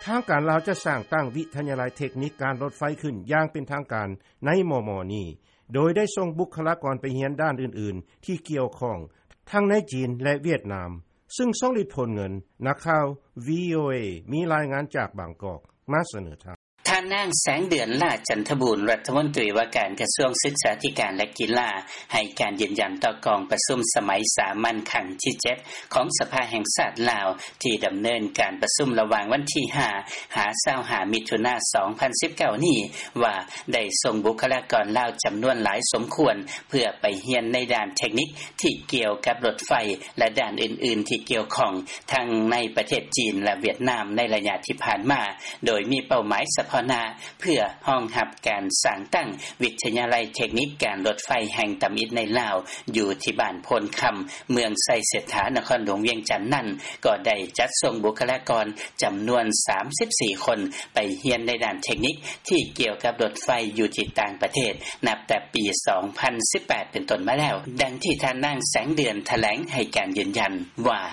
ທາງການລາວ ຈະສ້າງຕັ້ງວິທະຍາໄລເທັກນິກການລົດໄຟຂຶ້ນ ຢ່າງເປັນທາງການໃນມໍ່ໆນີ້ ໂດຍໄດ້ສົ່ງບຸກຄະລາກອນໄປຮຽນດ້ານອື່ນໆ ທີ່ກ່ຽວຂ້ອງ ທັງໃນຈີນ ແລະ ຫວຽດນາມ. ຊຶ່ງ ຊອງລິດ ໂພນເງິນ ນັກຂ່າວ ວີໂອເອ ມີລາຍງານຈາກບາງກອກ ມາສະເໜີທ່ານ. ທ່ານນາງ ແສງເດືອນ ຫຼ້າຈັນທະບູນ ລັດຖະມົນຕີວ່າການກະຊວງສຶກສາທິການ ແລະ ກິລາ ໃຫ້ການຢືນຢັນຕໍ່ກອງປະຊຸມສະໄໝສາມັນຄັ້ງທີເຈັດ ຂອງສະພາແຫ່ງຊາດລາວ ທີ່ດຳເນີນການປະຊຸມລະຫວ່າງວັນທີຫ້າ ຫາ ຊາວຫ້າ ມິຖຸນາ ສອງພັນສິບເກົ້ານີ້ ວ່າໄດ້ສົ່ງບຸກຄະລາກອນລາວຈຳນວນຫຼາຍສົມຄວນ ເພື່ອໄປຮຽນໃນດ້ານເທັກນິກທີ່ກ່ຽວກັບລົດໄຟ ແລະ ດ້ານອື່ນໆທີ່ກ່ຽວຂ້ອງ ທັງໃນປະເທດຈີນ ແລະ ຫວຽດນາມ ໃນໄລຍະທີ່ຜ່ານມາ, ໂດຍມີເປົ້າໝາຍສະເພາະໜ້າ ເພື່ອຮອງຮັບການສ້າງຕັ້ງວິທະຍາໄລເທັກນິກການລົດໄຟແຫ່ງທຳອິດໃນລາວ ຢູ່ທີ່ບ້ານໂພນຄຳ ເມືອງໄຊເສດຖາ ນະຄອນຫຼວງວຽງຈັນນັ້ນ ກໍໄດ້ຈັດສົ່ງບຸກຄະລາກອນຈຳນວນສາມສິບສີ່ຄົນ ໄປຮຽນໃນດ້ານເທັກນິກທີ່ກ່ຽວກັບລົດໄຟຢູ່ທີ່ຕ່າງປະເທດ ນັບແຕ່ປີສອງພັນສິບແປດເປັນຕົ້ນມາແລ້ວ, ດັ່ງທີ່ທ່ານນາງ ແສງເດືອນ ຖະແຫຼງໃຫ້ການຢືນຢັນວ່າ: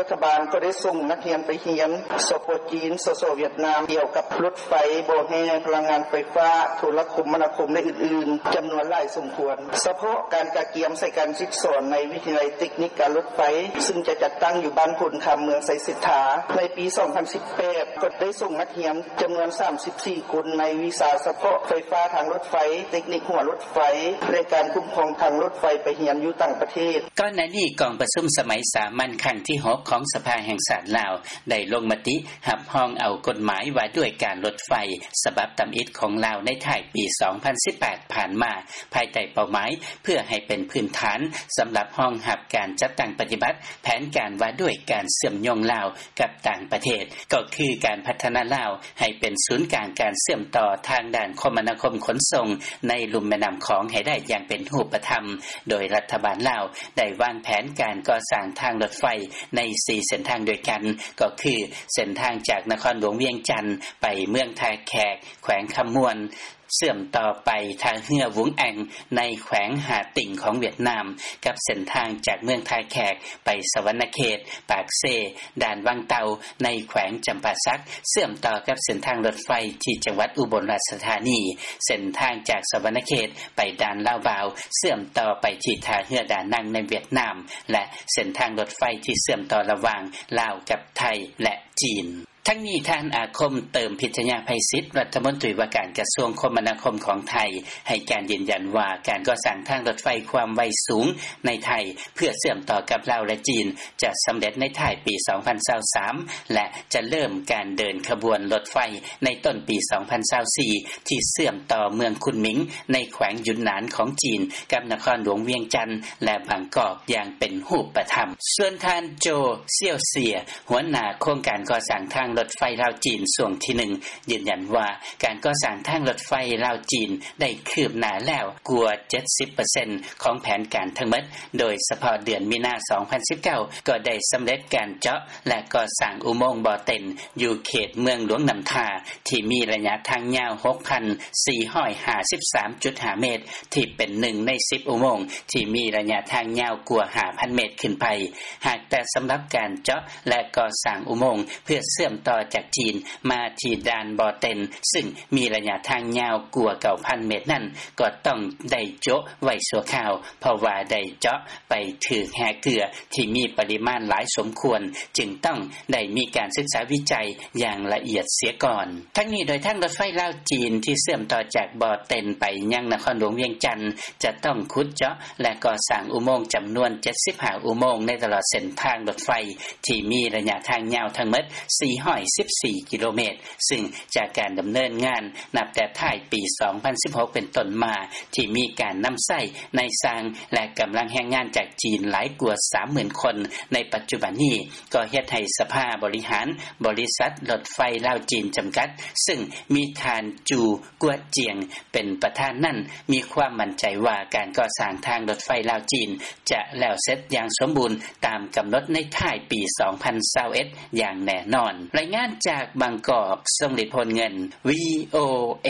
ລັດຖະບານກໍໄດ້ສົ່ງນັກຮຽນໄປຮຽນ ສປ ຈີນ, ສສ ຫວຽດນາມ ກ່ຽວກັບລົດໄຟ, ບໍ່ແຮ່, ພະລັງງານໄຟຟ້າ, ໂທລະຄົມມະນາຄົມ ແລະ ອື່ນໆ ຈຳນວນຫຼາຍສົມຄວນ. ສະເພາະການກະກຽມໃສ່ການສຶກສອນໃນວິທະຍາໄລເຕັກນິກການລົດໄຟ ຊຶ່ງຈະຈັດຕັ້ງຢູ່ບ້ານໂພນຄຳ ເມືອງໄຊເສດຖາ ໃນປີສອງພັນສິບແປດ ກໍໄດ້ສົ່ງນັກຮຽນຈຳນວນສາມສິບສີ່ຄົນ ໃນວິຊາສະເພາະໄຟຟ້າທາງລົດໄຟ, ເຕັກນິກຫົວລົດໄຟ ແລະ ການຄຸ້ມຄອງທາງລົດໄຟ ໄປຮຽນຢູ່ຕ່າງປະເທດ. ກ່ອນໜ້ານີ້ ກອງປະຊຸມສະໄໝສາມັນຄັ້ງທີຫົກ ຂອງສະພາແຫ່ງຊາດລາວ ໄດ້ລົງມະຕິຮັບຮອງເອົາກົດໝາຍວ່າດ້ວຍການລົດໄຟ ສະບັບທຳອິດຂອງລາວ ໃນທ້າຍປີສອງພັນສິບແປດຜ່ານມາ ພາຍໃຕ້ເປົ້າໝາຍ ເພື່ອໃຫ້ເປັນພື້ນຖານສຳລັບຮອງຮັບການຈັດຕັ້ງປະຕິບັດແຜນການວ່າດ້ວຍການເຊື່ອມໂຍງລາວກັບຕ່າງປະເທດ ກໍຄືການພັດທະນາລາວໃຫ້ເປັນສູນກາງການເຊື່ອມຕໍ່ທາງດ້ານຄົມມະນາຄົມຂົນສົ່ງໃນລຸ່ມແມ່ນ້ຳຂອງໃຫ້ໄດ້ຢ່າງເປັນຮູບປະທຳ, ໂດຍລັດຖະບານລາວໄດ້ວາງແຜນການກໍ່ສ້າງທາງລົດໄຟໃນສີ່ເສັ້ນທາງດ້ວຍກັນ ກໍຄືເສັ້ນທາງຈາກນະຄອນຫຼວງວຽງຈັນໄປເມືອງທ່າແຂກ ແຂວງຄຳມ່ວນ, ເຊື່ອມຕໍ່ໄປທ່າເຮືອວຸງແອງ ໃນແຂວງຮ່າຕິ່ງຂອງຫວຽດນາມ, ກັບເສັ້ນທາງຈາກເມືອງທ່າແຂກໄປສະຫວັນນະເຂດ, ປາກເຊ, ດ່ານວັງເຕົ່າ ໃນແຂວງຈຳປາສັກ, ເຊື່ອມຕໍ່ກັບເສັ້ນທາງລົດໄຟທີ່ຈັງຫວັດອຸບົນລາຊະທານີ, ເສັ້ນທາງຈາກສະຫວັນນະເຂດໄປດ່ານລາວບາວ, ເຊື່ອມຕໍ່ໄປທີ່ທ່າເຮືອດານັງໃນຫວຽດນາມ ແລະ ເສັ້ນທາງລົດໄຟທີ່ເຊື່ອມຕໍ່ລະຫວ່າງລາວກັບໄທ ແລະ ຈີນ. ທັງນີ້ ທ່ານ ອາຄົມ ເຕີມພິດທະຍາໄພສິດ ລັດຖະມົນຕີວ່າການກະຊວງຄົມມະນາຄົມຂອງໄທ ໃຫ້ການຢືນຢັນວ່າ ການກໍ່ສ້າງທາງລົດໄຟຄວາມໄວສູງໃນໄທ ເພື່ອເຊື່ອມຕໍ່ກັບລາວ ແລະ ຈີນ ຈະສຳເລັດໃນທ້າຍປີສອງພັນຊາວສາມ ແລະ ຈະເລີ່ມການເດີນຂະບວນລົດໄຟໃນຕົ້ນປີສອງພັນຊາວສີ່ ທີ່ເຊື່ອມຕໍ່ເມືອງຄຸນໝິງ ໃນແຂວງຢຸນໜານຂອງຈີນ ກັບນະຄອນຫຼວງວຽງຈັນ ແລະ ບາງກອກ ຢ່າງເປັນຮູບປະທຳ. ສ່ວນທ່ານ ໂຈ ຊຽວເຊຍ ຫົວໜ້າໂຄງການກໍ່ສ້າງທາງລົດໄຟລາວ-ຈີນຊ່ວງທີໜຶ່ງ ຢືນຢັນວ່າ ການກໍ່ສ້າງທາງລົດໄຟລາວ-ຈີນ ໄດ້ຄືບໜ້າແລ້ວກວ່າເຈັດສິບເປີເຊັນຂອງແຜນການທັງໝົດ, ໂດຍສະເພາະເດືອນມີນາ ສອງພັນສິບເກົ້າ ກໍໄດ້ສຳເລັດການເຈາະ ແລະ ກໍ່ສ້າງອຸໂມງບໍ່ເຕັນ ຢູ່ເຂດເມືອງຫຼວງນ້ຳທາ ທີ່ມີໄລຍະທາງຍາວ ຫົກພັນສີ່ຮ້ອຍຫ້າສິບສາມຈຸດຫ້າເມດ ທີ່ເປັນໜຶ່ງໃນສິບອຸໂມງທີ່ມີໄລຍະທາງຍາວກວ່າຫ້າພັນເມດຂຶ້ນໄປ. ຫາກແຕ່ສຳລັບການເຈາະ ແລະ ກໍ່ສ້າງອຸໂມງເພື່ອເຊື່ອມຕໍ່ຈາກຈີນມາທີ່ດ່ານບໍ່ເຕັນ ຊຶ່ງມີໄລຍະທາງຍາວກວ່າເກົ້າພັນເມດນັ້ນ ກໍຕ້ອງໄດ້ໂຈະໄວ້ຊົ່ວຄາວ ເພາະວ່າໄດ້ເຈາະໄປຖືກແຮ່ເກືອທີ່ມີປະລິມານຫຼາຍສົມຄວນ, ຈຶ່ງຕ້ອງໄດ້ມີການສຶກສາວິໄຈຢ່າງລະອຽດເສຍກ່ອນ. ທັງນີ້ ໂດຍທາງລົດໄຟລາວ-ຈີນທີ່ເຊື່ອມຕໍ່ຈາກບໍ່ເຕັນໄປຍັງນະຄອນຫຼວງວຽງຈັນ ຈະຕ້ອງຂຸດເຈາະ ແລະ ກໍ່ສ້າງອຸໂມງຈຳນວນເຈັດສິບຫ້າອຸໂມງໃນຕະຫຼອດເສັ້ນທາງລົດໄຟ ທີ່ມີໄລຍະທາງຍາວທັງໝົດສີ່ຮ້ອຍສິບສີ່ກິໂລເມດ, ຊຶ່ງຈາກການດຳເນີນງານນັບແຕ່ທ້າຍປີສອງພັນສິບຫົກເປັນຕົ້ນມາ ທີ່ມີການນຳໃຊ້ນາຍຊ່າງ ແລະ ກຳລັງແຮງງານຈາກຈີນຫຼາຍກວ່າສາມໝື່ນຄົນໃນປັດຈຸບັນນີ້ ກໍເຮັດໃຫ້ສະພາບໍລິຫານບໍລິສັດລົດໄຟລາວ-ຈີນ ຈຳກັດ ຊຶ່ງມີທ່ານ ຈູ ກວດຈຽງ ເປັນປະທານນັ້ນ ມີຄວາມໝັ້ນໃຈວ່າການກໍ່ສ້າງທາງລົດໄຟລາວ-ຈີນ ຈະແລ້ວເສັດຢ່າງສົມບູນຕາມກຳນົດໃນທ້າຍປີສອງພັນຊາວເອັດຢ່າງແນ່ນອນ. ລາຍງານຈາກບາງກອກ, ຊົງລິດ ໂພນເງິນ, ວີໂອເອ.